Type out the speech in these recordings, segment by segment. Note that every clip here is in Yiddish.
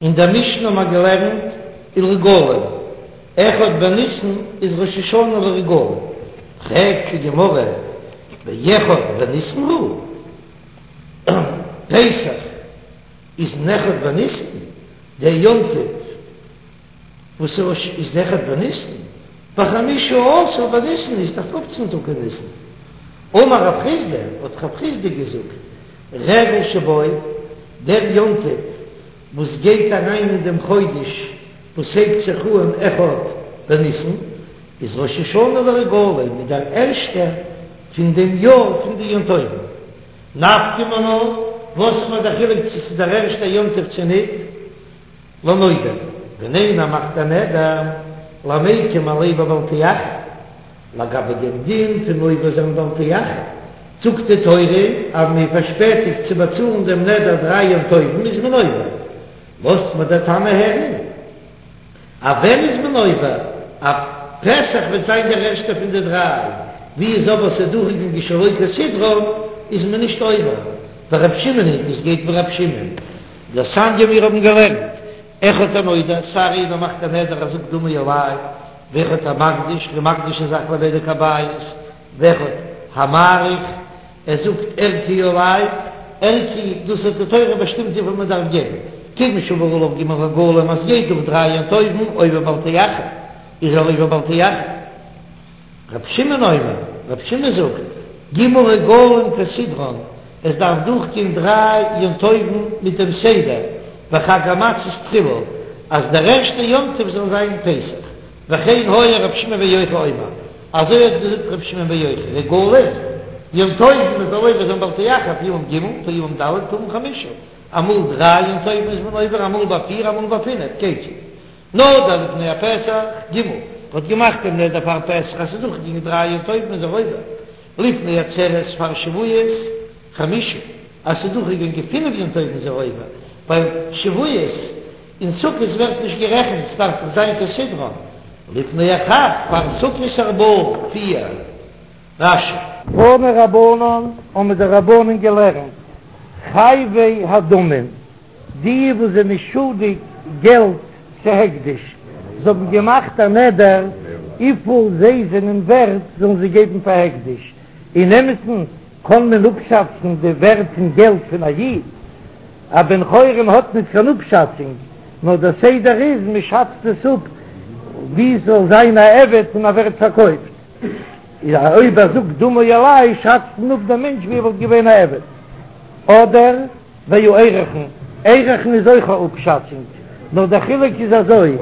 אין דער משנה האבן מיר געלערנט ולרגלים, אחד בניסן איז ראש השנה לרגלים, פרעגט די גמרא, באחד בניסן הוא? פסח איז אין אחד בניסן, דער יום טוב וואס איז אחד בניסן, בחמישה עשר בניסן איז דאך פופצן טאג אין ניסן. אמר רב חסדא, האט רב חסדא געזאגט, רגל שבו, דער יום טוב וואס גייט אריין אין דעם חודש וואס הייבט זיך אהן אחד בניסן, איז ראש השנה לרגלים, איז דער ערשטער פון דעם יאר פון די יום טובים. נפקא מינה, וואס איז מיר דער חילוק צו ס'איז דער ערשטער יום טוב צו ניט? לנודר, ווען איינער מאכט א נדר, למיקם עליה בבל תאחר, לגבי דעם דין פון עובר זיין בל תאחר, זאגט די תורה אז מען פארשפעטיגט צו באצאלן דעם נדר דריי יום טובים איז מען עובר, לאזט מיר דער תנא הערן אז ווען איז מען עובר, אז פסח וועט זיין דער ערשטער פון די דריי, ווי איז אבער ס'איז דורכגעגאנגען שלא כסדרן איז מען נישט עובר, ורב שמעון היא, דאס גייט ווי רב שמעון. דתניא מיר האבן געלערנט, אחד הנודר, סיי איינער מאכט א נדר ער זאגט דמי עלי, ואחד המקדיש, ער איז מקדיש א זאך לבדק הבית, ואחד המעריך, ער זאגט ערכי עלי, ערכי, דאס האט די תורה באשטימט וויפיל מען דארף געבן, כיוון שעבר עליו ג' רגלים אז ס'גייט דורך דריי יום טובים עובר בל תאחר, איז ער עובר בל תאחר. ר' שמעון אומר, ר' שמעון זאגט, ג' רגלים כסדרן, עס דארף דורכגיין דריי יום טובים מיט דעם סדר, וחג המצות תחילה, אז דער ערשטער יום טוב זאל זיין פסח, וכן היה ר' שמעון בן יוחאי אומר, אזוי האט געזאגט ר' שמעון בן יוחאי, רגלים, יום טובים מען זאל עובר זיין בל תאחר, פעמים ג', פעמים ד', פעמים חמשה, אמאל דריי יום טובים איז מען עובר, אמאל ביי פיר, אמאל ביי פינף, כיצד? נדר לפני הפסח, ג' האט געמאכט דעם נדר פאר פסח אז ס'איז דורכגעגאנגען דריי יום טובים איז ער עובר, לפני עצרת פאר שבועות, חמשה, אז ס'איז דורכגעגאנגען פינף יום טובים איז ער עובר, ווייל שבועות און סוכות ווערט נישט גערעכנט, ס'דארף דאך זיין כסדרן, לפני החג פאר סוכות ארבעה, פיר. רש"י. תנו רבנן האבן די רבנן געלערנט, חייבי הדמים, די וואס זענען שולדיג געלט צו הקדש, זיי האבן געמאכט א נדר וויפיל זיי זענען ווערט זאלן זיי געבן פאר הקדש, אין אמת'ן קען מען אפשאצן די ווערט פון געלט פון א איד, א בן חורין האט ניט קיין אפשאצונג, נאר דער סדר איז מען שאצט עס אפ ווי ס'זאל זיין א עבד און ער ווערט פארקויפט, אויב ער זאגט דמי עלי שאצט מען אפ דעם מענטש ווי ער וואלט געווען א עבד, אדער. והערכין, ערכין איז אויך א אפשאצונג, נאר דער חילוק איז אזוי,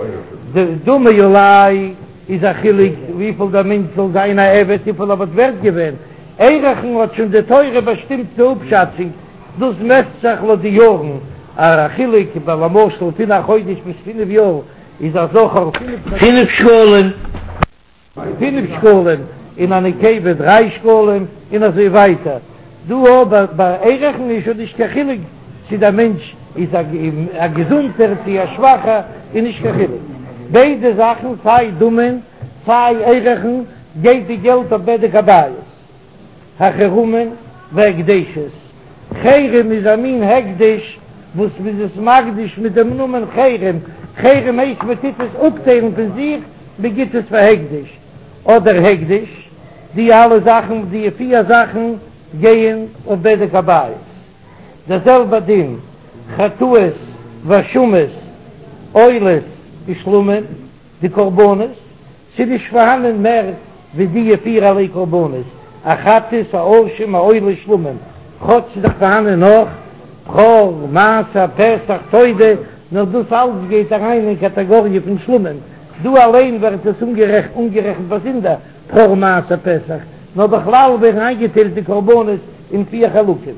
די דמי עלי איז א חילוק וויפיל דער מענטש זאל זיין א עבד וויפיל ער וואלט ווערט געווען, ערכין האט שוין די תורה באשטימט די אפשאצונג, דאס מעסט זיך לויט די יארן, א חילוק ביי למשל פון א חודש ביז פינף יאר איז א זכר פינף שקלים. פינף שקלים, און א נקבה דריי שקלים, און אזוי ווייטער. דא אבער ביי ערכין איז שוין נישט קיין חילוק צו דער מענטש איז א געזונטער צו א שוואכער, איז נישט קיין חילוק. ביידע זאכן סיי דמים סיי ערכין גייט די געלט אויף בדק הבית. החרמין והקדשות, חרם איז א מין הקדש וואס מ'איז עס מקדיש מיט דעם נאמען חרם, חרם הייסט מען טוט עס אפטיילן פון זיך, מען גיט עס פאר הקדש, אדער הקדש, די אלע זאכן, די פיר זאכן גייען אויף בדק הבית. דער זעלבער דין, חטאות ואשמות, עולות ושלמים, די קרבנות. ס'איז נישט פארהאנען מער ווי דיע פירערליי קרבנות, א חטאת, א אשם, א עולה, שלמים, כאטש ס'איז דאך פארהאנען נאך, בכור, מעשר, פסח, תודה, נאר דאס אלץ גייט אריין אין קאטאגאריע פון שלמים, דא אליין ווערט עס אנגערעכנט באזונדער, בכור, מעשר, פסח, נאר בכלל ווערן איינגעטיילט די קרבנות אין פיר חלקים.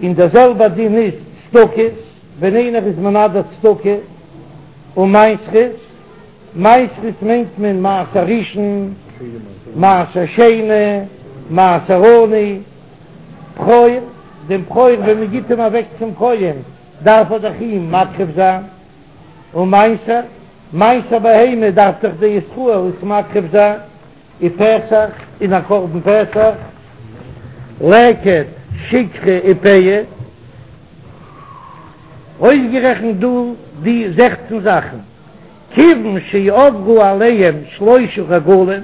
און דער זעלבער דין איז צדקות, ווען איינער איז מנדר צדקה ומעשרות, מעשרות מיינט מען מעשר ראשון, מעשר שני, מעשר עני, בכור, דעם בכור ווען מען גיט אים אוועק צום כהן דארף ער דאך אים מקריב זיין, ומעשר, מעשר בהמה דארף דאך דער ישראל עס מקריב זיין, ופסח, און א קרבן פסח, לקט, שכחה ופאה. אויסגערעכנט דא די זעכצן זאכן, כיוון שעברו עליהם שלשה רגלים,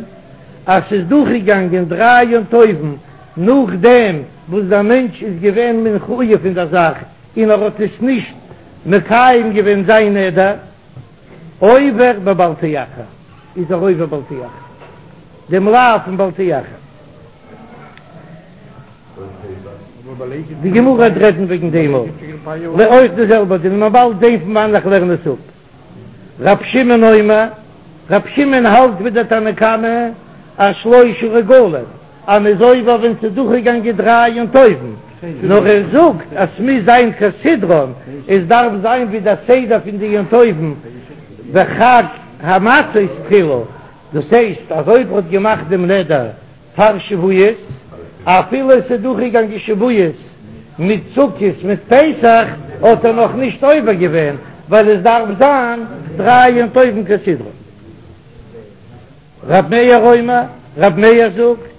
אז ס'איז דורכגעגאנגען דריי יום טובים נאכדעם וואס דער מענטש איז געווען מחויב אין דער זאך און ער האט עס נישט מקיים געווען זיין נדר, עובר בבל תאחר, איז ער עובר בל תאחר, דעם לאו פון בל תאחר. די גמרא וועט רעדן וועגן דעם אויך, אויך די זעלבע דין, מ'וועט באלד זען פון וואנען איך לערן עס אפ. רב שמעון אומר, רב שמעון האלט ווי דער תנא קמא אז שלשה רגלים, אז מ'איז עובר ווען ס'איז דורכגעגאנגען דריי יום טובים, נאר ער זאגט אז ס'מוז זיין כסדרן, עס דארף זיין ווי דער סדר פון די יום טובים בחג המצות תחילה, דאס הייסט אז אויב ער האט געמאכט דעם נדר פאר שבועות, אפילו עס איז דורכגעגאנגען שבועות מיט סוכות מיט פסח, האט ער נאך נישט עובר געווען, ווייל עס דארף זיין דריי יום טובים כסדרן. רב מאיר אומר, רב מאיר זאגט,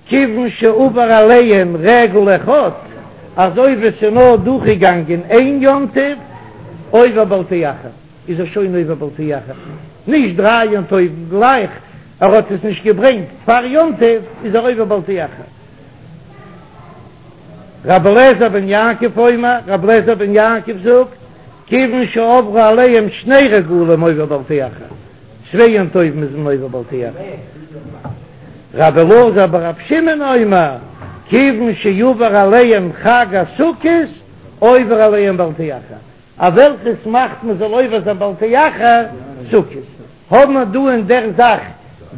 כיוון שעבר עליהם רגל אחד, אז אויב עס איז נאר דורכגעגאנגען איין יום טוב, עובר בל תאחר. איז ער שוין עובר בל תאחר, נישט דריי יום טובים גלייך, ער האט עס נישט געברענגט פאר יום טוב איז ער עובר בל תאחר. רבי אליעזר בן יעקב אומר, רבי אליעזר בן יעקב זאגט, כיוון שעברו עליהם שני רגלים עובר בל תאחר, צוויי יום טובים איז מען עובר בל תאחר. רבי אלעזר ברבי שמעון אומר, כיוון שעבר עליהם חג הסוכות עובר עליהם בל תאחר. א וועלכעס מאכט מען זאל עובר זיין בל תאחר סוכות, האבן מיר דא אין דער זאך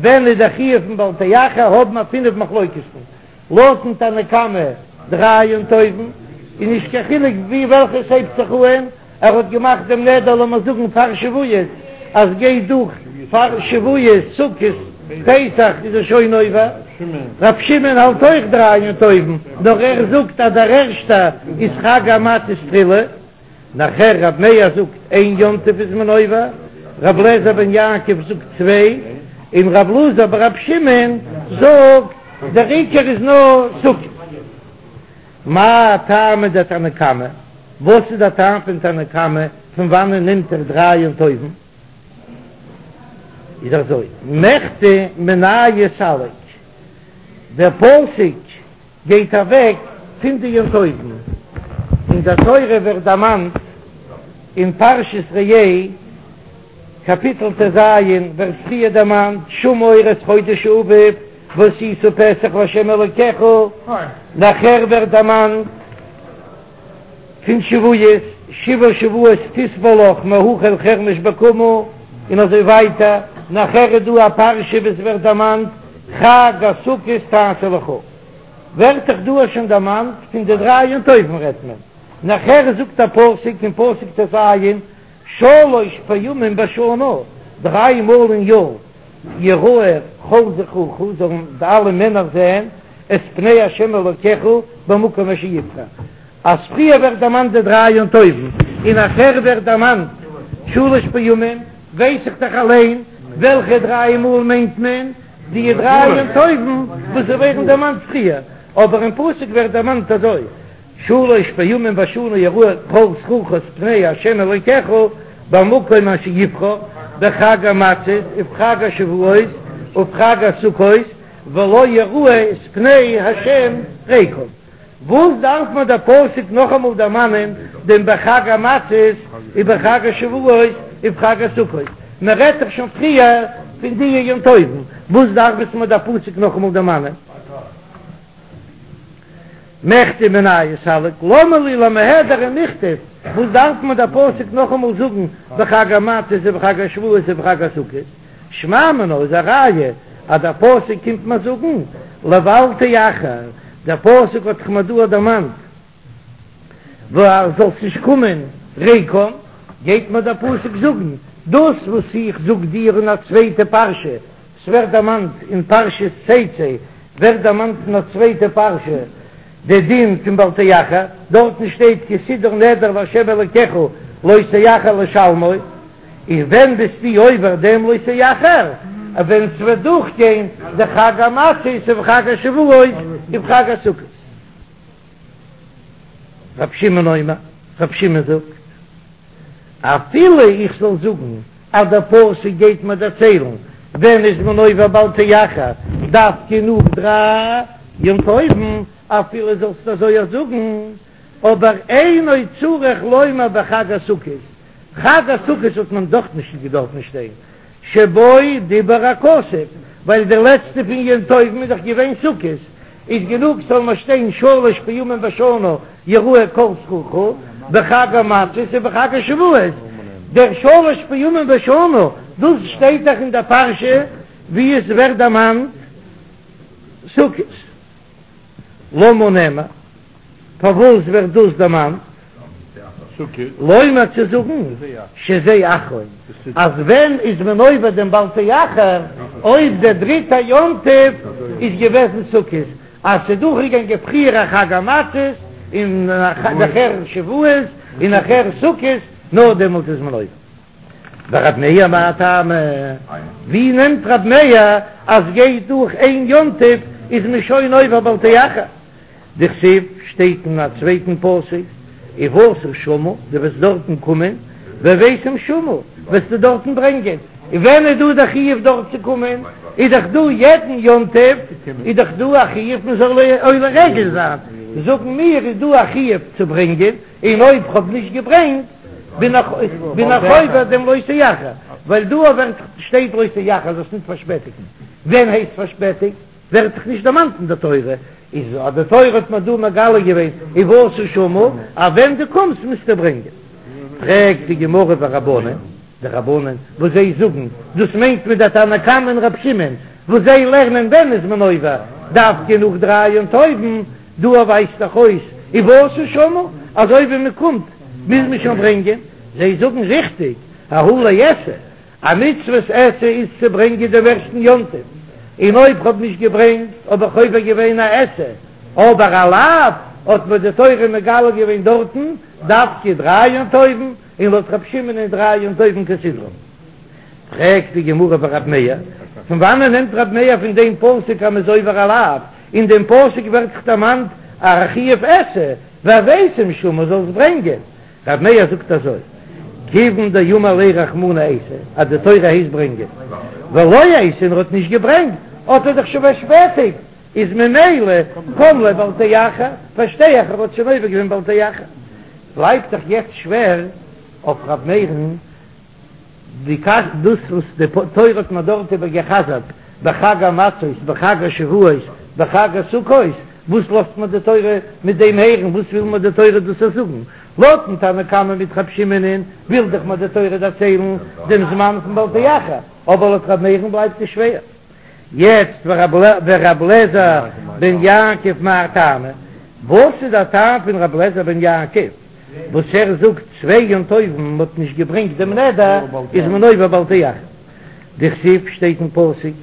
ווען איז דער חיוב פון בל תאחר האבן מיר פינף מחלוקת'ן, לויטן תנא קמא דריי יום טובים איז נישט קיין חילוק ווי וועלכעס הייבט זיך אהן, ער האט געמאכט דעם נדר לאמיר זאגן פאר שבועות אז גייט דורך פאר שבועות סוכות פסח איז ער שוין עובר, ר' שמעון האלט אויך דריי יום טובים נאר ער זאגט אז דער ערשטער איז חג המצות תחילה. נאכער רב מאיר זאגט איין יום טוב איז מען עובר, רב לעזער בן יעקב זאגט צוויי, און רב אלעזר ברב שמעון זאגט דער עיקר איז נאר סוכות. מאי טעמא דתנא קמא, וואס איז דער טעם פון תנא קמא, פון וואנען נעמט ער דריי יום טובים? איז אזוי, מכדי מינייהו סליק, דער פסוק גייט אוועק פון די יום טובים, אין דער תורה ווערט דערמאנט אין פרשת ראה קאפיטל טז ווערט פריער דערמאנט שמור את חודש האביב ועשית פסח לה' אלקיך, נאכער ווערט דערמאנט פון שבועות, שבעה שבועות תספר לך מהחל חרמש בקמה, און אזוי ווייטער, נאכער איז דא א פרשה וואס ווערט דערמאנט חג הסוכות תעשה לך, ווערט דאך דא שוין דערמאנט פון די דריי יום טובים רעדט מען, נאכער זאגט א פסוק אין פסוק טז, שלש פעמים בשנה, דריי מאל אין יאר, יראה כל זכורך, זאלן די אלע מענער זען, את פני השם אלוקיך במקום אשר יבחר. אז פריער ווערט דערמאנט די דריי יום טובים, און נאכער ווערט דערמאנט שלש פעמים, ווייס איך דאך אליין וועלכע דריי מאל מיינט מען די דריי יום טובים וואס ווערן דערמאנט פריער, אבער אין פסוק ווערט דערמאנט אזוי, שלש פעמים בשנה יראה כל זכורך את פני ה' אלוקיך במקום אשר יבחר, בחג המצות ובחג השבועות ובחג הסוכות, ולא יראה את פני ה' ריקם. וואס דארף מיר דער פסוק נאכאמאל דערמאנען דעם בחג המצות ובחג השבועות ובחג הסוכות? מען רעדט דאך שוין פריער פון די יום טובים, וואס דארף עס מיר דער פסוק נאכאמאל דערמאנען? מכדי מינייהו סליק, למה לי למיהדר ומיכתב, וואס דארף מיר דער פסוק נאכאמאל זאגן בחג המצות ובחג השבועות ובחג הסוכות? שמע מינה איז א ראיה אז דער פסוק קומט מיר זאגן לבל תאחר, דער פסוק האט דאך מיר דא דערמאנט ווייל זאלסט נישט קומען ריקם, גייט מיר דער פסוק זאגן דאס וואס איך זאג דיר אין א צווייטע פרשה, ס'ווערט דערמאנט אין פרשת תצא ווערט דערמאנט אין א צווייטע פרשה די דין פון בל תאחר, דארטן שטייט כי תדור נדר לה' אלקיך לא תאחר לשלמו. און ווען ביסטו עובר דעם לא תאחר, ווען ס'וועט דורכגיין די חג המצות ובחג השבועות ובחג הסוכות. רב שמעון אומר, רב שמעון זאגט. אפילו איך זאל זאגן אז דער פסוק גייט מיר דערציילן ווען איז מען עובר בל תאחר דווקא נאך דריי יום טובים, אפילו זאלסט אזוי אויך זאגן, אבער אינו צריך לומר בחג הסוכות, חג הסוכות האט מען דאך נישט געדארפן שטיין, שבו דיבר הכתוב, ווייל דער לעצטע פון יום טובים איז דאך געווען סוכות, איז גענוג ס'זאל נאר שטיין שלש פעמים בשנה יראה כל זכורך, בחג המצות ובחג השבועות, דער שלש פעמים בשנה דאס שטייט דאך אין דער פרשה ווי עס ווערט דערמאנט סוכות. למה נאמר? פארוואס ווערט דאס דערמאנט? לומר צו זאגן שזה אחרון, אז ווען איז מען עובר דעם בל תאחר, אויב דער דריטער יום טוב איז געוועזן סוכות, אז ס'איז דורכגעגאנגען פריער א חג המצות און נאכער שבועות און נאכער סוכות, נאר דעמאלט איז מען עובר. ורב מאיר מאי טעמא? ווי נעמט רב מאיר אז גייט דורך איין יום טוב איז מען שוין עובר בל תאחר? דכתיב שטייט אין א צווייטן פסוק ובאת שמה, דו וועסט דארטן קומען, והבאתם שמה, וועסטו דארטן ברענגען, און ווען איז דא דער חיוב דארט צו קומען? איז דאך דא יעדן יום טוב איז דאך דא א חיוב מען זאל עולה רגל זיין, זאגן מיר איז דא א חיוב צו ברענגען, און אויב כ'האב נישט געברענגט בין איך בין איך עובר דעם לא תאחר, ווייל דא ווערט שטייט לא תאחר זאלסט נישט פארשפעטיגן, ווען הייסט פארשפעטיגט? ווערט דאך נישט דערמאנט אין די תורה, איז אז די תורה האט מיר דא מגלה געווען ובאת שמה, אז ווען דו קומסט מוזטו ברענגען. פרעגט די גמרא ורבנן, די רבנן וואס זיי זאגן, דאס מיינט מען דער תנא קמא און רב שמעון, וואס זיי לערנען ווען איז מען עובר, דווקא נאך דריי יום טובים, דא ווייזט דאך אויס ובאת שמה, אזוי ווי מען קומט מוז מען שוין ברענגען, זיי זאגן ריכטיג, ההוא לעשה, א מצוות עשה איז צו ברענגען דעם ערשטן יום טוב, און אויב כ'האב נישט געברענגט האב איך עובר געווען א עשה, אבער א לאו האט מיר די תורה מגלה געווען דארטן דווקא דריי יום טובים, און לויט רב שמעון איז דריי יום טובים כסדרן. פרעגט די גמרא ורב מאיר, פון וואנען נעמט רב מאיר פון דעם פסוק אז מ'איז עובר א לאו? אין דעם פסוק ווערט דאך דערמאנט א חיוב עשה, והבאתם שמה זאלסט ברענגען. רב מאיר זאגט אזוי, כיוון דאמר ליה רחמנא אייתי, אז די תורה הייסט ברענגען, ולא אייתי און ער האט נישט געברענגט, האט ער דאך שוין פארשפעטיגט, איז ממילא קם ליה בל תאחר, פארשטיי איך ער האט שוין עובר געווען בל תאחר. בלייבט דאך יעצט שווער אויף רב מאיר'ן די קשיא, דאס וואס די תורה האט מיר דארט איבער גע'חזר'ט בחג המצות בחג השבועות בחג הסוכות, וואס לאזט מיר די תורה מיט דעם הערן, וואס וויל מיר די תורה דאס זאגן? לויטן תנא קמא מיט רב שמעונ'ען וויל דאך מיר די תורה דערציילן דעם זמן פון בל תאחר, אבער לויט רב מאיר'ן בלייבט עס שווער. יעצט ורב לעזר בן יעקב מאי טעמא, וואס איז דער טעם פון רב לעזר בן יעקב וואס ער זאגט צוויי יום טובים מען האט נישט געברענגט דעם נדר איז מען עובר בל תאחר, דכתיב שטייט אין פסוק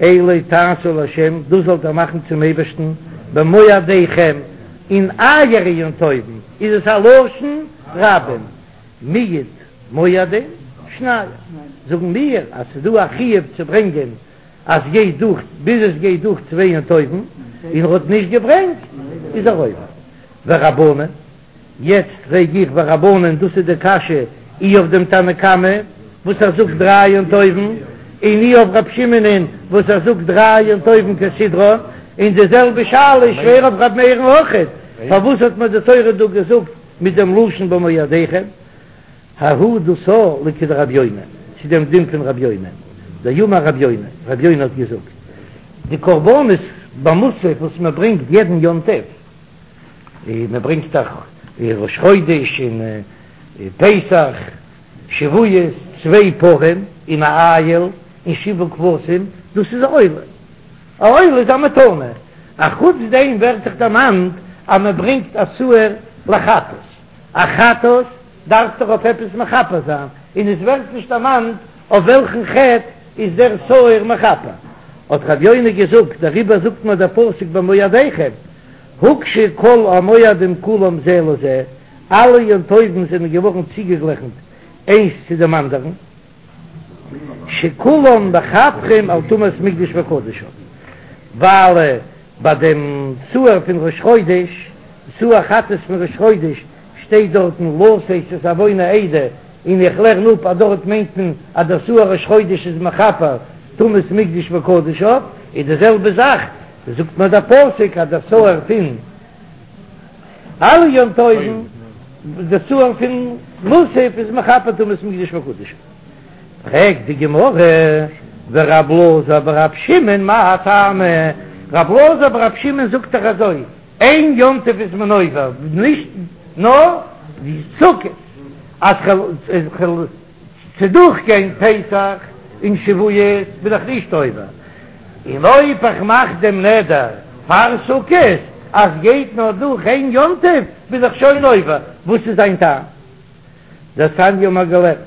אלה תעשו לה' דאס זאלט איר מאכן צום אייבערשטן במועדיכם אין אייערע יום טובים, איז עס א לשון רבים, מיעוט מועדים שנים, זאגן מיר אז ס'איז דא א חיוב צו ברענגען אז גייט דורך ביז עס גייט דורך צוויי יום טובים און ער האט נישט געברענגט איז ער עובר. ורבנן, יעצט פרעג איך ורבנן דאס איז די קשיא אי אויף דעם תנא קמא וואס ער זאגט דריי יום טובים און אי אויף רב שמעונ'ען וואס ער זאגט דריי יום טובים כסדרן, און די זעלבע שאלה איז שווער אויף ר' מאיר'ן אויכעט, פארוואס האט מיר די תורה דא געזאגט מיט דעם לשון במועדיכם? ההוא דאס לכדרב יונה, צו דעם דין פון רב יונה, דאמר רב יונה, רב יונה האט געזאגט, די קרבנות במוסף וואס מען ברענגט יעדן יום טוב, מען ברענגט דאך ראש חודש און פסח, שבועות, צוויי פרים און א איל און שבעה כבשים, דאס איז א עולה, א עולה איז א מתנה, א חוץ דעם ווערט זיך דערמאנט אז מען ברענגט א שעיר לחטאת, א חטאת דארף דאך אויף עפעס מכפר זיין, און עס ווערט נישט דערמאנט אויף וועלכן חטא איז דער שעיר מכפר. האט רב יונה געזאגט, דעריבער זאגט מיר דער פסוק במועדיכם, הוקשו כל המועדים כולם זה לזה, אלע יום טובים זענען געווארן צוגעגליכנט איינס צו דעם אנדערן, שכולם מכפרים על טומאת מקדש וקדשיו, ווייל ביי דעם שעיר פון ראש חודש, שעיר חטאת פון ראש חודש, שטייט דארטן לשאת את עון העדה. און איך לערן אפ אז דארט מיינט מען אז דער שעיר ראש חודש איז מכפר טומאת מקדש וקדשיו, איז די זעלבע זאך זאגט מיר דער פסוק אז דער שעיר פון אלע יום טובים, דער שעיר פון מוסף איז מכפר טומאת מקדש וקדשיו. פרעגט די גמרא, ורב אלעזר ברב שמעון מאי טעמא, רב אלעזר ברב שמעון זאגט דאך אזוי, איין יום טוב איז מען עובר, נישט נאר סוכות, אז כ'וועל דורכגיין פסח און שבועות בין איך נישט עובר, און אויב איך מאך דעם נדר פאר סוכות אז גייט נאר דורך איין יום טוב בין איך שוין עובר, וואס איז זיין טעם? דתניא האבן מיר געלערנט,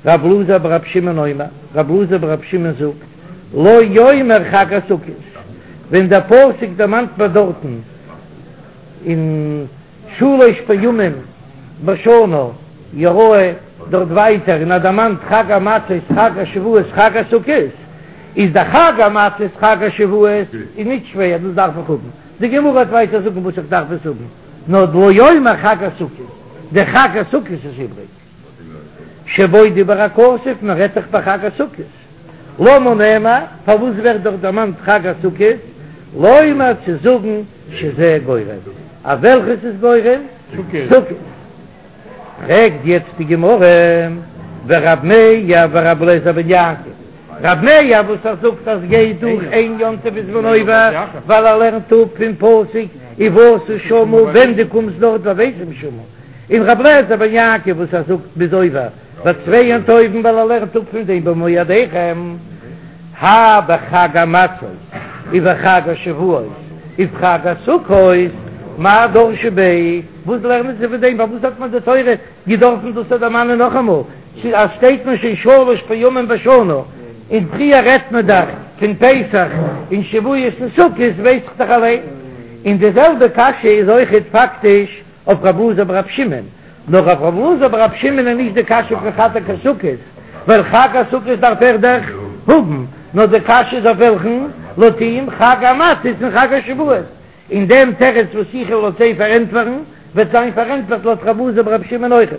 רב אלעזר ברב שמעון אומר, רב אלעזר ברב שמעון זאגט, לא יאמר חג הסוכות, ווען דער פסוק דערמאנט מיר דארטן אין שלש פעמים בשנה יראה דארט ווייטער און ער דערמאנט חג המצות חג השבועות חג הסוכות, איז דער חג המצות חג השבועות איז נישט שווער דאס דארף איך האבן, די גמרא וועט ווייטער זאגן וואס איך דארף עס האבן. נאר לא יאמר חג הסוכות, דער חג הסוכות איז איבריג, שבו דיבר הכתוב, מען רעדט דאך ביי חג הסוכות, למה נאמר, פארוואס ווערט דארט דערמאנט חג הסוכות, לומר צו זאגן שזה גורם, אויף וועלכעס איז גורם? סוכות. פרעגט יעצט די גמרא, ורב מאיר ורב אליעזר בן יעקב, רב מאיר וואס ער זאגט אז גייט דורך איין יום טוב איז מען עובר, ווייל ער לערנט אפ פון פסוק ובאת שמה ווען דו קומסט דארט והבאתם שמה, און רב אליעזר בן יעקב וואס ער זאגט מ'איז עובר ביי צוויי יום טובים ווייל ער לערנט אפ פון דעם במועדיכם, האי בחג המצות ובחג השבועות ובחג הסוכות, מאי דרשו ביה? וואס לערנען זיי פון דעם? פארוואס האט מען די תורה געדארפן דאס דערמאנען נאכאמאל? אז שטייט מען שוין שלש פעמים בשנה, און פריער רעדט מען דאך פון פסח און שבועות און סוכות, ווייס איך דאך אליין. און די זעלבע קשיא איז אויכעט פאקטיש אויף רב אלעזר ברב שמעון, נאר אויף רב אלעזר ברב שמעון איז נישט די קשיא פון חג הסוכות, ווייל חג הסוכות דארף ער דאך האבן, נאר די קשיא איז אויף וועלכן? לויט אים חג המצות און חג השבועות. און דעם תירוץ וואס איך וועל לויט זיי פארענטפערן, וועט זיין פארענטפערט לויט רב אלעזר ברב שמעון אויכעט.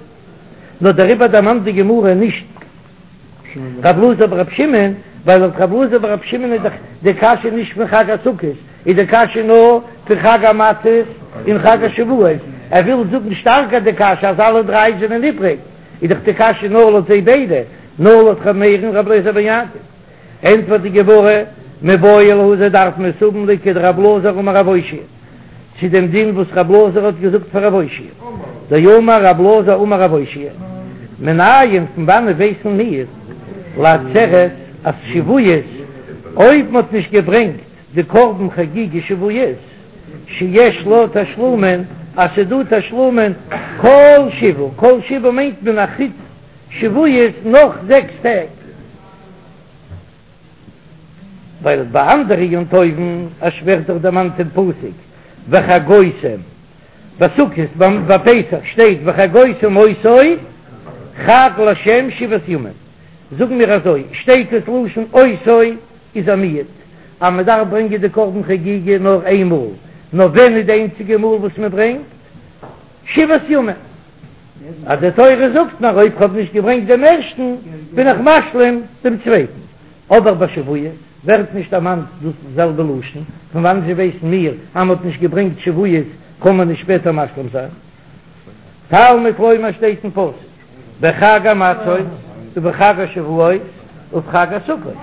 נאר דעריבער דערמאנט די גמרא נישט רב אלעזר ברב שמעון, ווייל לויט רב אלעזר ברב שמעון איז דאך די קשיא נישט פון חג הסוכות, איז די קשיא נאר פון חג המצות און חג השבועות, ער וויל זאגן שטארקער די קשיא אז אלע דריי זענען איבריג, איז דאך די קשיא נאר לויט זיי ביידע, נאר לויט ר' מאיר און רב אלעזר בן יעקב. ענטפערט די גמרא, מיבעי להו זיי דארפן עס האבן לכדרב אלעזר אמר רב אושעיא, צו דעם דין וואס רב אלעזר האט געזאגט פאר רב אושעיא, דאמר רב אלעזר אמר רב אושעיא, מנין פון וואנעט ווייסן מיר לעצרת אז שבועות אויב מען האט נישט געברענגט די קרבן חגיגה שבועות שיש לה תשלומין אז ס'דא תשלומין כל שבעה, כל שבעה מיינט מען אחוץ שבועות נאך זעקס טעג. ווייל ביי אנדערע יום טובים עס ווערט דאך דערמאנט אין פסוק וחגותם, ביי סוכות ביי פסח שטייט וחגותם אותו חג לה' שבעת ימים, זאגן מיר אזוי שטייט עס לשון אותו איז א מיעוט אז מען דארף ברענגען די קרבן חגיגה נאר איין מאל, נאר ווען איז די איינציגע מאל וואס מען ברענגט? שבעת ימים. אז די תורה זאגט מיר אויב כ'האב נישט געברענגט דעם ערשטן בין איך משלים דעם צווייטן, אבער ביי שבועות ווערט נישט דערמאנט דאס זעלבע לשון, פון וואנעט זשע ווייסן מיר אז מ'האט נישט געברענגט שבועות קען מען נישט שפעטער משלים זיין? תלמוד לומר שטייט אין פסוק בחג המצות ובחג השבועות ובחג הסוכות,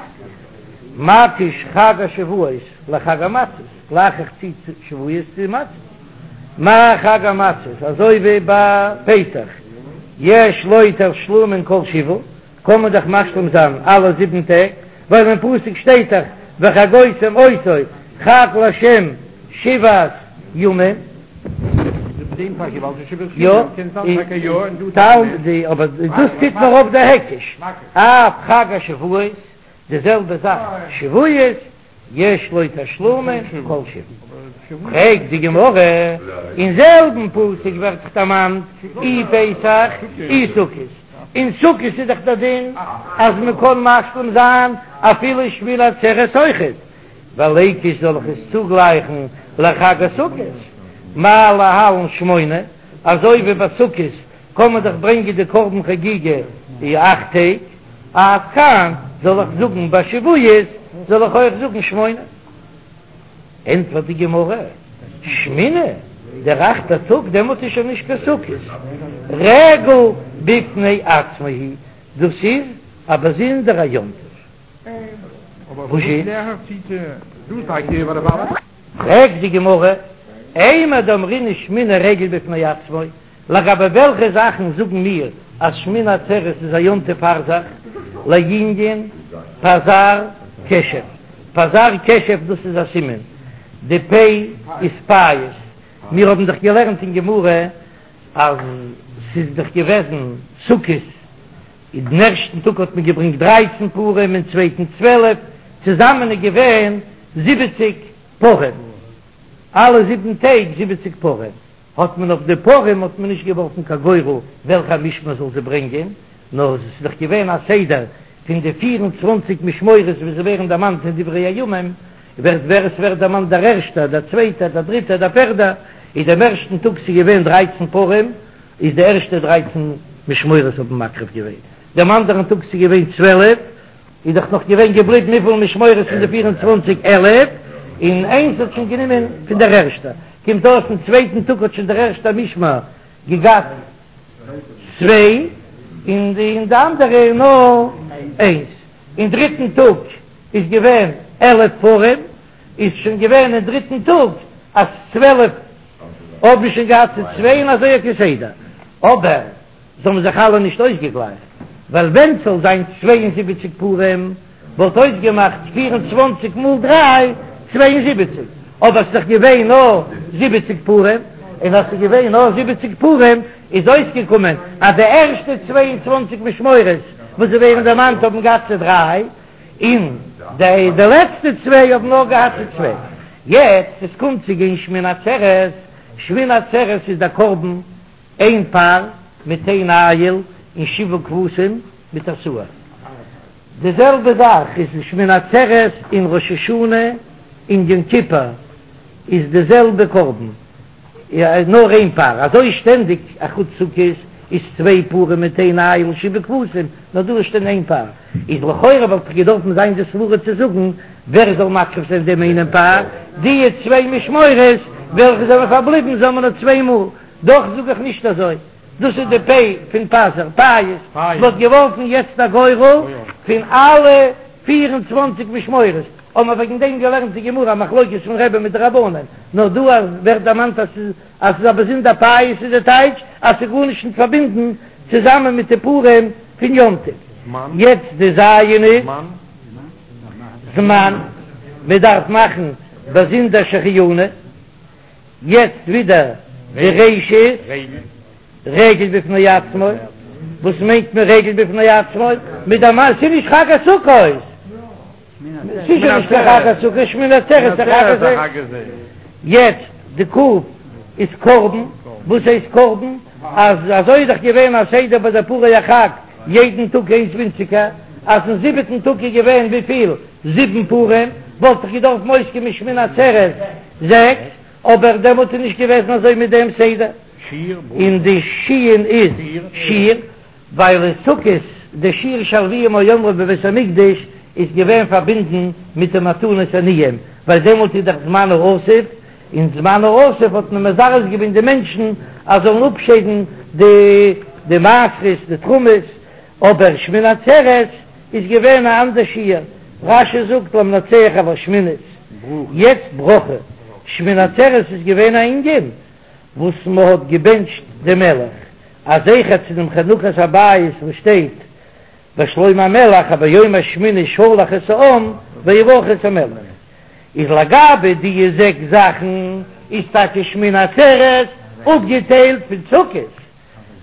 מקיש חג השבועות לחג המצות, גלייך איך צו שבועות צו מצות. מה חג המצות, אזוי ווי ביי פסח, יש לו תשלומין כל שבעה, קען מען דאך משלים זיין אלע זיבן טעג, ווייל אין פסוק שטייט דאך וחגותם אותו חג לה' שבעת ימים. יא, אבער דאס טוט נאר אויף די היקש, אף חג השבועות, די זעלבע זאך שבועות. יש לו תשלומין כל שבעה. פרעגט די גמרא, אין זעלבן פסוק ווערט דאך דערמאנט אי פסח אי סוכות, אין סוכות איז דאך דער דין אז מען קען משלים זיין אפילו שמיני עצרת אויכעט, וליקוש זאל איך עס צוגלייכן לחג הסוכות, מה להלן שמונה, אזוי ווי ביי סוכות. קען מען דאך ברענגען די קרבן חגיגה די אכט טעג, אף כאן זאל איך זאגן ביי שבועות זאל איך אויך זאגן שמונה? ענטפערט די גמרא, שמיני, דער אכטער טאג דעמאלט איז שוין נישט קיין סוכות, רגל בפני עצמו הוא, דאס איז א באזונדערע יום טוב. פרעגט די גמרא, אימר דאמרינן שמיני רגל בפני עצמו, לגבי וועלכע זאכן זאגן מיר אז שמיני עצרת איז א יום טוב פאר זיך, לענין פז"ר קשף, פז"ר קשף דאס איז א סימן, די פ' איז פייס, מיר האבן דאך געלערנט אין גמרא אז ס'איז דאך געוועזן סוכות, אין דעם ערשטן טאג האט מען געברענגט דרייצן פרים אין צווייטן צוועלף, צוזאמען איז געווען זיבעציק פרים, אלע זיבן טעג זיבעציק פרים, האט מען אויף די פרים האט מען נישט געווארפן קיין גורל וועלכע משמר זאל זיי ברענגען, נאר עס איז דאך געווען א סדר פון די פיר און צוואנציג משמרות ווי זיי ווערן דערמאנט אין דברי הימים, ווערט ווער עס ווערט דערמאנט דער ערשטער, דער צווייטער, דער דריטער, דער פערדער, איז דעם ערשטן טאג ס'איז געווען דרייצן פרים, איז די ערשטע דרייצן משמרות האבן מקריב געווען, דעם אנדערן טאג ס'איז געווען צוועלף, איז דאך נאך געווען געבליבן וויפיל משמרות פון די פיר און צוואנציג? עלף, און איינס האט שוין גענומען פון דער ערשטער, קומט אויס אין צווייטן טאג האט שוין דער ערשטער משמר געגאט צוויי, און די אנדערע נאר איינס, אין דריטן טאג איז געווען עלף פרים, איז שוין געווען אין דריטן טאג אז צוועלף האבן שוין געהאט צו צוויי און אזוי כסדר, אבער זיי האבן זיך אלע נישט אויסגעגלייכט, ווייל ווען ס'זאל זיין 72 פרים וואלט אויסגעמאכט 24 מאל דריי, 72, אבער ס'איז דאך געווען נאר זיבעציק פרים, און אז ס'איז געווען נאר זיבעציק פרים איז אויסגעקומען אז די ערשטע 22 משמרות וואס זיי ווערן דערמאנט האבן געהאט צו דריי, און די די לעצטע צוויי האבן נאר געהאט צו צוויי. יעצט עס קומט צו גיין שמיני עצרת, שמיני עצרת איז דער קרבן איין פר מיט איין איל און שבעה כבשים מיט א שעיר. די זעלבע זאך איז שמיני עצרת און ראש השנה און יום כיפור איז די זעלבע קרבן. נאר איין פר, אזוי שטענדיג אחוץ סוכות איז צוויי פרים מיט איין איל און שבעה כבשים, נאר דא איז שטענדיג איין פר, איז לכאורה וואלט דאך געדארפן זיין די סברה צו זאגן ווער זאל מקריב זיין דעם איינעם פר, די צוויי משמרות וועלכע זענען פארבליבן זאל מען נאר צוויי מאל, דאך זאג איך נישט אזוי, דאס איז די פ' פון פז"ר, פייס, מען האט געווארפן יעצט א גורל פון אלע 24 משמרות, האבן מיר וועגן דעם געלערנט די גמרא א מחלוקת פון רבי מיט די רבנן, נאר דא אז ווערט דערמאנט אז ס'איז אז ס'איז א באזונדער פייס איז די טייטש אז ס'איז גארנישט נישט פארבינדן צוזאמען מיט די פרים פון יום טוב. יעצט די ז' איז זמן, מען דארף מאכן באזונדער שהחיינו. יעצט ווידער די ריש איז רגל בפני עצמו, וואס מיינט מען רגל בפני עצמו? מיט דער מאן, ס'איז נישט חג הסוכות, ס'איז שוין נישט קיין חג הסוכות, שמיני עצרת איז חג הזה. יעצט די ק' איז קרבן, וואס הייסט קרבן? אז אזוי איז דאך געווען א סדר ביי די פרי החג יעדן טאג איינס ווינציגער, אז אין זיבעטן טאג איז געווען וויפיל? זיבן פרים, וואלט דאך געדארפט אויסקומען שמיני עצרת זעקס, אבער דעמאלט איז נישט געוועזן אזוי מיט דעם סדר, און די שין איז שיר, ווייל אין סוכות די שיר שהלוים היו אומרים בבית המקדש איז געווען פארבינדן מיט די מתנות עניים, ווייל דעמאלט איז דאך זמן האסיף, אין זמן האסיף האט מען מזרז געווען די מענטשן אז זאלן אפשיידן די די מעשרות די תרומות, אבער שמיני עצרת איז געווען א אנדער שיר, רש"י זאגט למנצח על השמינית, יעצט ברכה, שמיני עצרת איז געווען א ענין וואס מען האט געבענטשט דעם מלך, א זכר צו דעם חנוכת הבית וואס שטייט ביי שלמה המלך אז ביום השמיני שלח את העם ויברכו את המלך, איז לגבי די זעקס זאכן איז טאקע שמיני עצרת אפגעטיילט פון סוכות,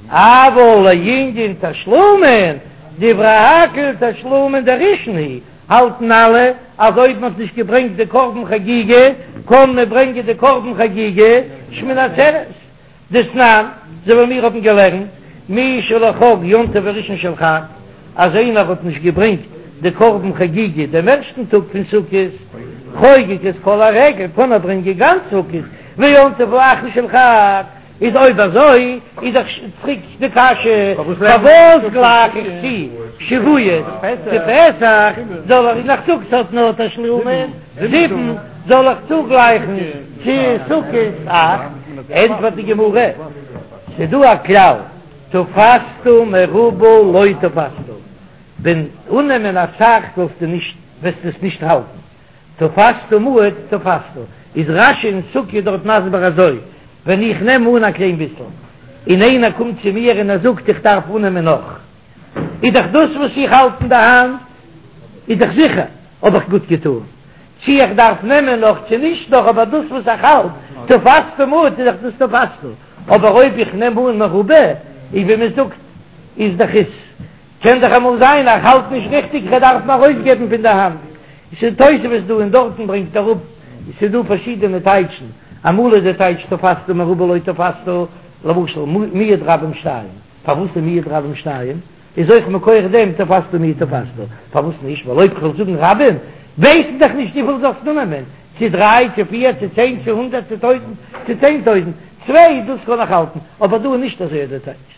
אבל לענין תשלומין, דברי הכל תשלומין דראשון הוא, האלטן אלע אז אויב מען האט נישט געברענגט די קרבן חגיגה קען מען ברענגען די קרבן חגיגה שמיני עצרת. דתנן, אזוי ווי מיר האבן געלערנט, מי שלא חג יום טוב הראשון של חג, אז איינער האט נישט געברענגט די קרבן חגיגה דעם ערשטן טאג פון סוכות, חוגג את כל הרגל, קען ער ברענגען גאנץ סוכות, ויום טוב האחרון של חג. איז אויב אזוי איז דאך צוריק די קשיא, פארוואס גלייך איך צו שבועות צו פסח, זאל איך נאך זאגן ס'האט נאר תשלומין זיבן, זאל איך צוגלייכן צו סוכות אכט? ענטפערט די גמרא, ס'דא א כלל, תפסת מרובה לא תפסת, ווען אננעמען אסאך זאלסטו נישט, וועסטו עס נישט האלטן. תפסת מועט תפסת, איז רש"י אין סוכה דארט מסביר אזוי, ווען איך נעם אן א קליין ביסל, און איינער קומט צו מיר און ער זאגט איך דארף אננעמען נאך, איז דאך דאס וואס איך האלט אין די האנט איז דאך זיכער האב איך גוט געטאן, צי איך דארף נעמען נאך צו נישט נאך, אבער דאס וואס איך האלט, תפסת מועט איז דאך דאס תפסת, אבער אויב איך נעם אן מרובה, איז ווי מען זאגט איז דאך עס. קען דאך אמאל זיין איך האלט נישט ריכטיג איך דארף אים ארויסגעבן פון די האנט, עס איז תוספות דא און דארטן ברענגט אראפ, עס איז דא פארשידענע טייטשן, אמאל איז די טייטש תפסת מרובה לא תפסת, למשל מיעוט רבים שתיים, פארוואס איז מיעוט רבים שתיים? איז אויך מכח דעם תפסת מועט תפסת, פארוואס נישט? ווייל אויב כ'וועל זאגן רבים ווייסט דאך נישט וויפיל זאלסט אננעמען, צו דריי צו פיר צו צען צו הונדערט צו טויזנט צו צען טויזנט, צוויי דאס קען איך האלטן, אבער דא איז נישט אזוי די טייטש.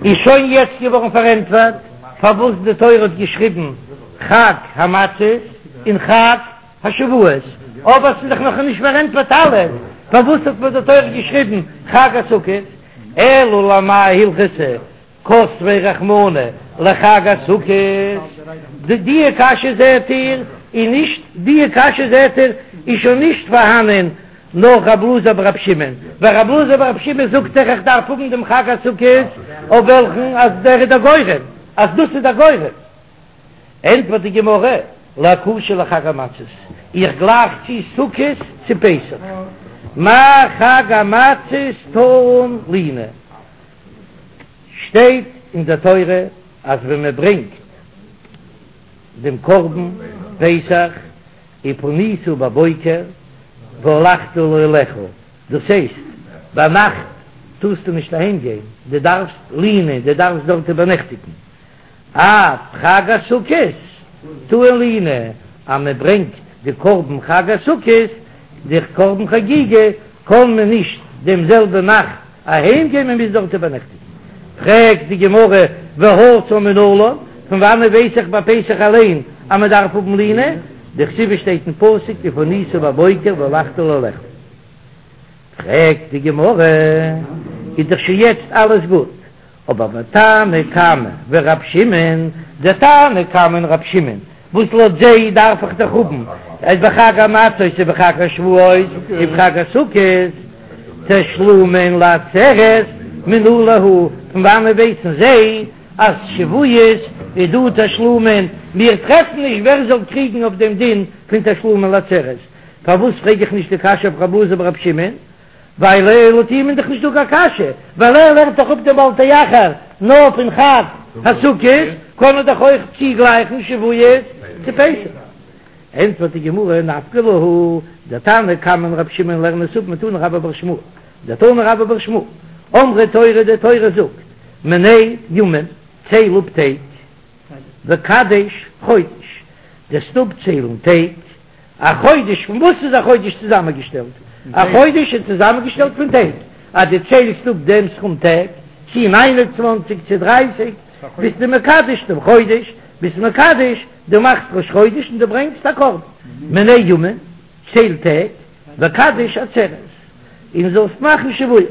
איז שוין יעצט געווארן פארענטפערט פארוואס די תורה האט געשריבן חג המצות און חג השבועות, אבער ס'איז דאך נאך נישט פארענטפערט אלעס, פארוואס האט מיר די תורה געשריבן חג הסוכות, אלא למאי הלכתא כתביה רחמנא לחג הסוכות, די קשיא זעהט איר איז נישט, די קשיא זעהט איר איז שוין נישט פארהאנען נאך רב אלעזר ברב שמעון, ווייל רב אלעזר ברב שמעון זאגט דאך איך דארף האבן דעם חג הסוכות אויף וועלכן אז דער איז דער גורם, אז דאס איז דער גורם. ענטפערט די גמרא, לאקושי לחג המצות, איך גלייך צו סוכות צו פסח, מה חג המצות טעון לינה, שטייט אין דער תורה אז ווען מען ברענגט דעם קרבן פסח ופנית בבוקר והלכת לאהליך, דאס הייסט ביינאכט טארסטו נישט אהיים גיין, דו דארפסט לינה, דו דארפסט דארט איבערנעכטיגן, אף חג הסוכות טעון לינה, אז מען ברענגט די קרבן חג הסוכות, די קרבן חגיגה, קען מען נישט דעם זעלבע נאכט אהיים גיין, מען מוז דארט איבערנעכטיגן. פרעגט די גמרא, והתם מנלן, פון וואנעט ווייס איך ביי פסח אליין אז מען דארף האבן לינה? דכתיב שטייט אין פסוק ופנית בבוקר והלכת לאהליך. פרעגט די גמרא, איז דאך שוין יעצט אלעס גוט, אבער ותנא קמא ורב שמעון, דער תנא קמא און רב שמעון, וואס לויט זיי דארף איך דאך האבן אז בחג המצות ובחג השבועות ובחג הסוכות תשלומין לעצרת מנא להו, פון וואנען ווייסן זיי אז שבועות איז דא תשלומין? מיר טרעפן נישט ווער זאל קריגן אויף דעם דין פון תשלומין לעצרת, פארוואס פרעג איך נישט די קשיא אויף רב אלעזר ברב שמעון? ווייל לויט אים איז דאך נישט דא קיין קשיא, ווייל ער לערנט דאך אפ דעם בל תאחר נאר פון חג הסוכות, קען ער דאך אויך צוגלייכן שבועות צו פסח. ענטפערט די גמרא, נפקא להו, דער תנא קמא און רבי שמעון לערנען עס אפ מתני רבה בר שמואל, דתני רבה בר שמואל, אמרה תורה, די תורה זאגט, מנה ימים, צייל אפ טעג, וקדש חודש, דו'סט אפציילן טעג, א חודש, פון וואס איז א חודש צוזאמענגעשטעלט? א חודש איז צוזאמענגעשטעלט פון טעג, אז דו ציילסט אפ דעם סכום טעג, צי ניין און צוואנציג צי דרייסיג, ביסטו מקדש דעם חודש, ביסט מקדש, דו מאכסט ראש חודש און דו ברענגסט א קרבן. מנה ימים, צייל טעג, וקדש עצרת, און זאלסט מאכן שבועות.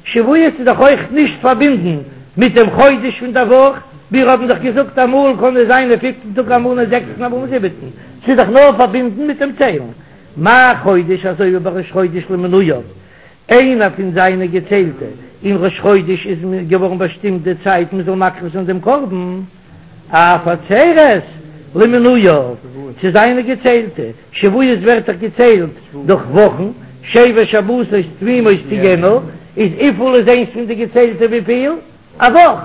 שבועות איז דאך אויך נישט פארבינדן מיט דעם חודש פון דער וואך, מיר האבן דאך געזאגט אמאל קען עס זיין אין פיפטן טאג אמאל אין זעקסטן אמאל אין זיבעטן, ס'איז דאך נאר פארבינדן מיט דעם ציילן. מה חודש אזוי ווי ביי ראש חודש למנויו, איינער פון זיינע געציילטע, אין ראש חודש איז געווארן באשטימט די צייט מען זאל מקריב זיין דעם קרבן, אף עצרת למנויו, צו זיינע געציילטע, שבועות ווערט דאך געציילט דורך וואכן, שבע שבתות תמימות תהיינה, איז וויפיל איז איינס פון די געציילטע וויפיל? א וואך,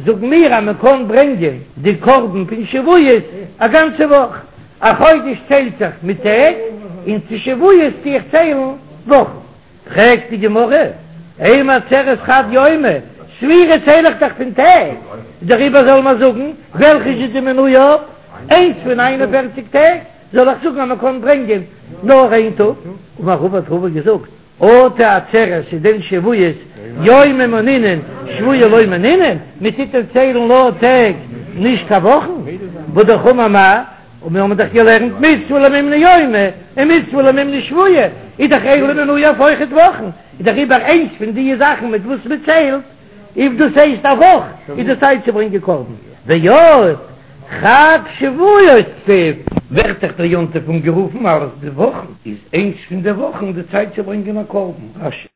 זאגן מיר אז מען קען ברענגען די קרבן פון שבועות א גאנצע וואך, א חודש ציילט זיך מיט טעג, און צו שבועות טו איך ציילן וואכן. פרעגט די גמרא, אימא עצרת חד יומא, ספירה צייל איך דאך פון טעג, דעריבער זאל מען זאגן, וועלכע איז די מנויו? איינס פון ניין און פערציג טעג, זאל איך זאגן אז מען קען ברענגען נאר איין טאג? אמר רבא האט רבא געזאגט, אטו עצרת איז דען שבועות יומי מנינן שבועי לא מנינן, מען טוט דען ציילן נאר טעג נישט קיין וואכן, והא אמר מר, און מיר האבן דאך געלערנט מצוה למימני יומי און מצוה למימני שבועי, איז דאך אלו מנויין אויכעט וואכן, איז דעריבער איינס פון די זאכן מיט וואס מען ציילט, אויב דאס הייסט א וואך, איז די צייט צו ברענגען קרבן. ועוד, חג שבועות כתיב, ווערט דאך דער יום טוב אנגערופן אלס די וואכן, איז איינס פון די וואכן די צייט צו ברענגען א קרבן. רש"י.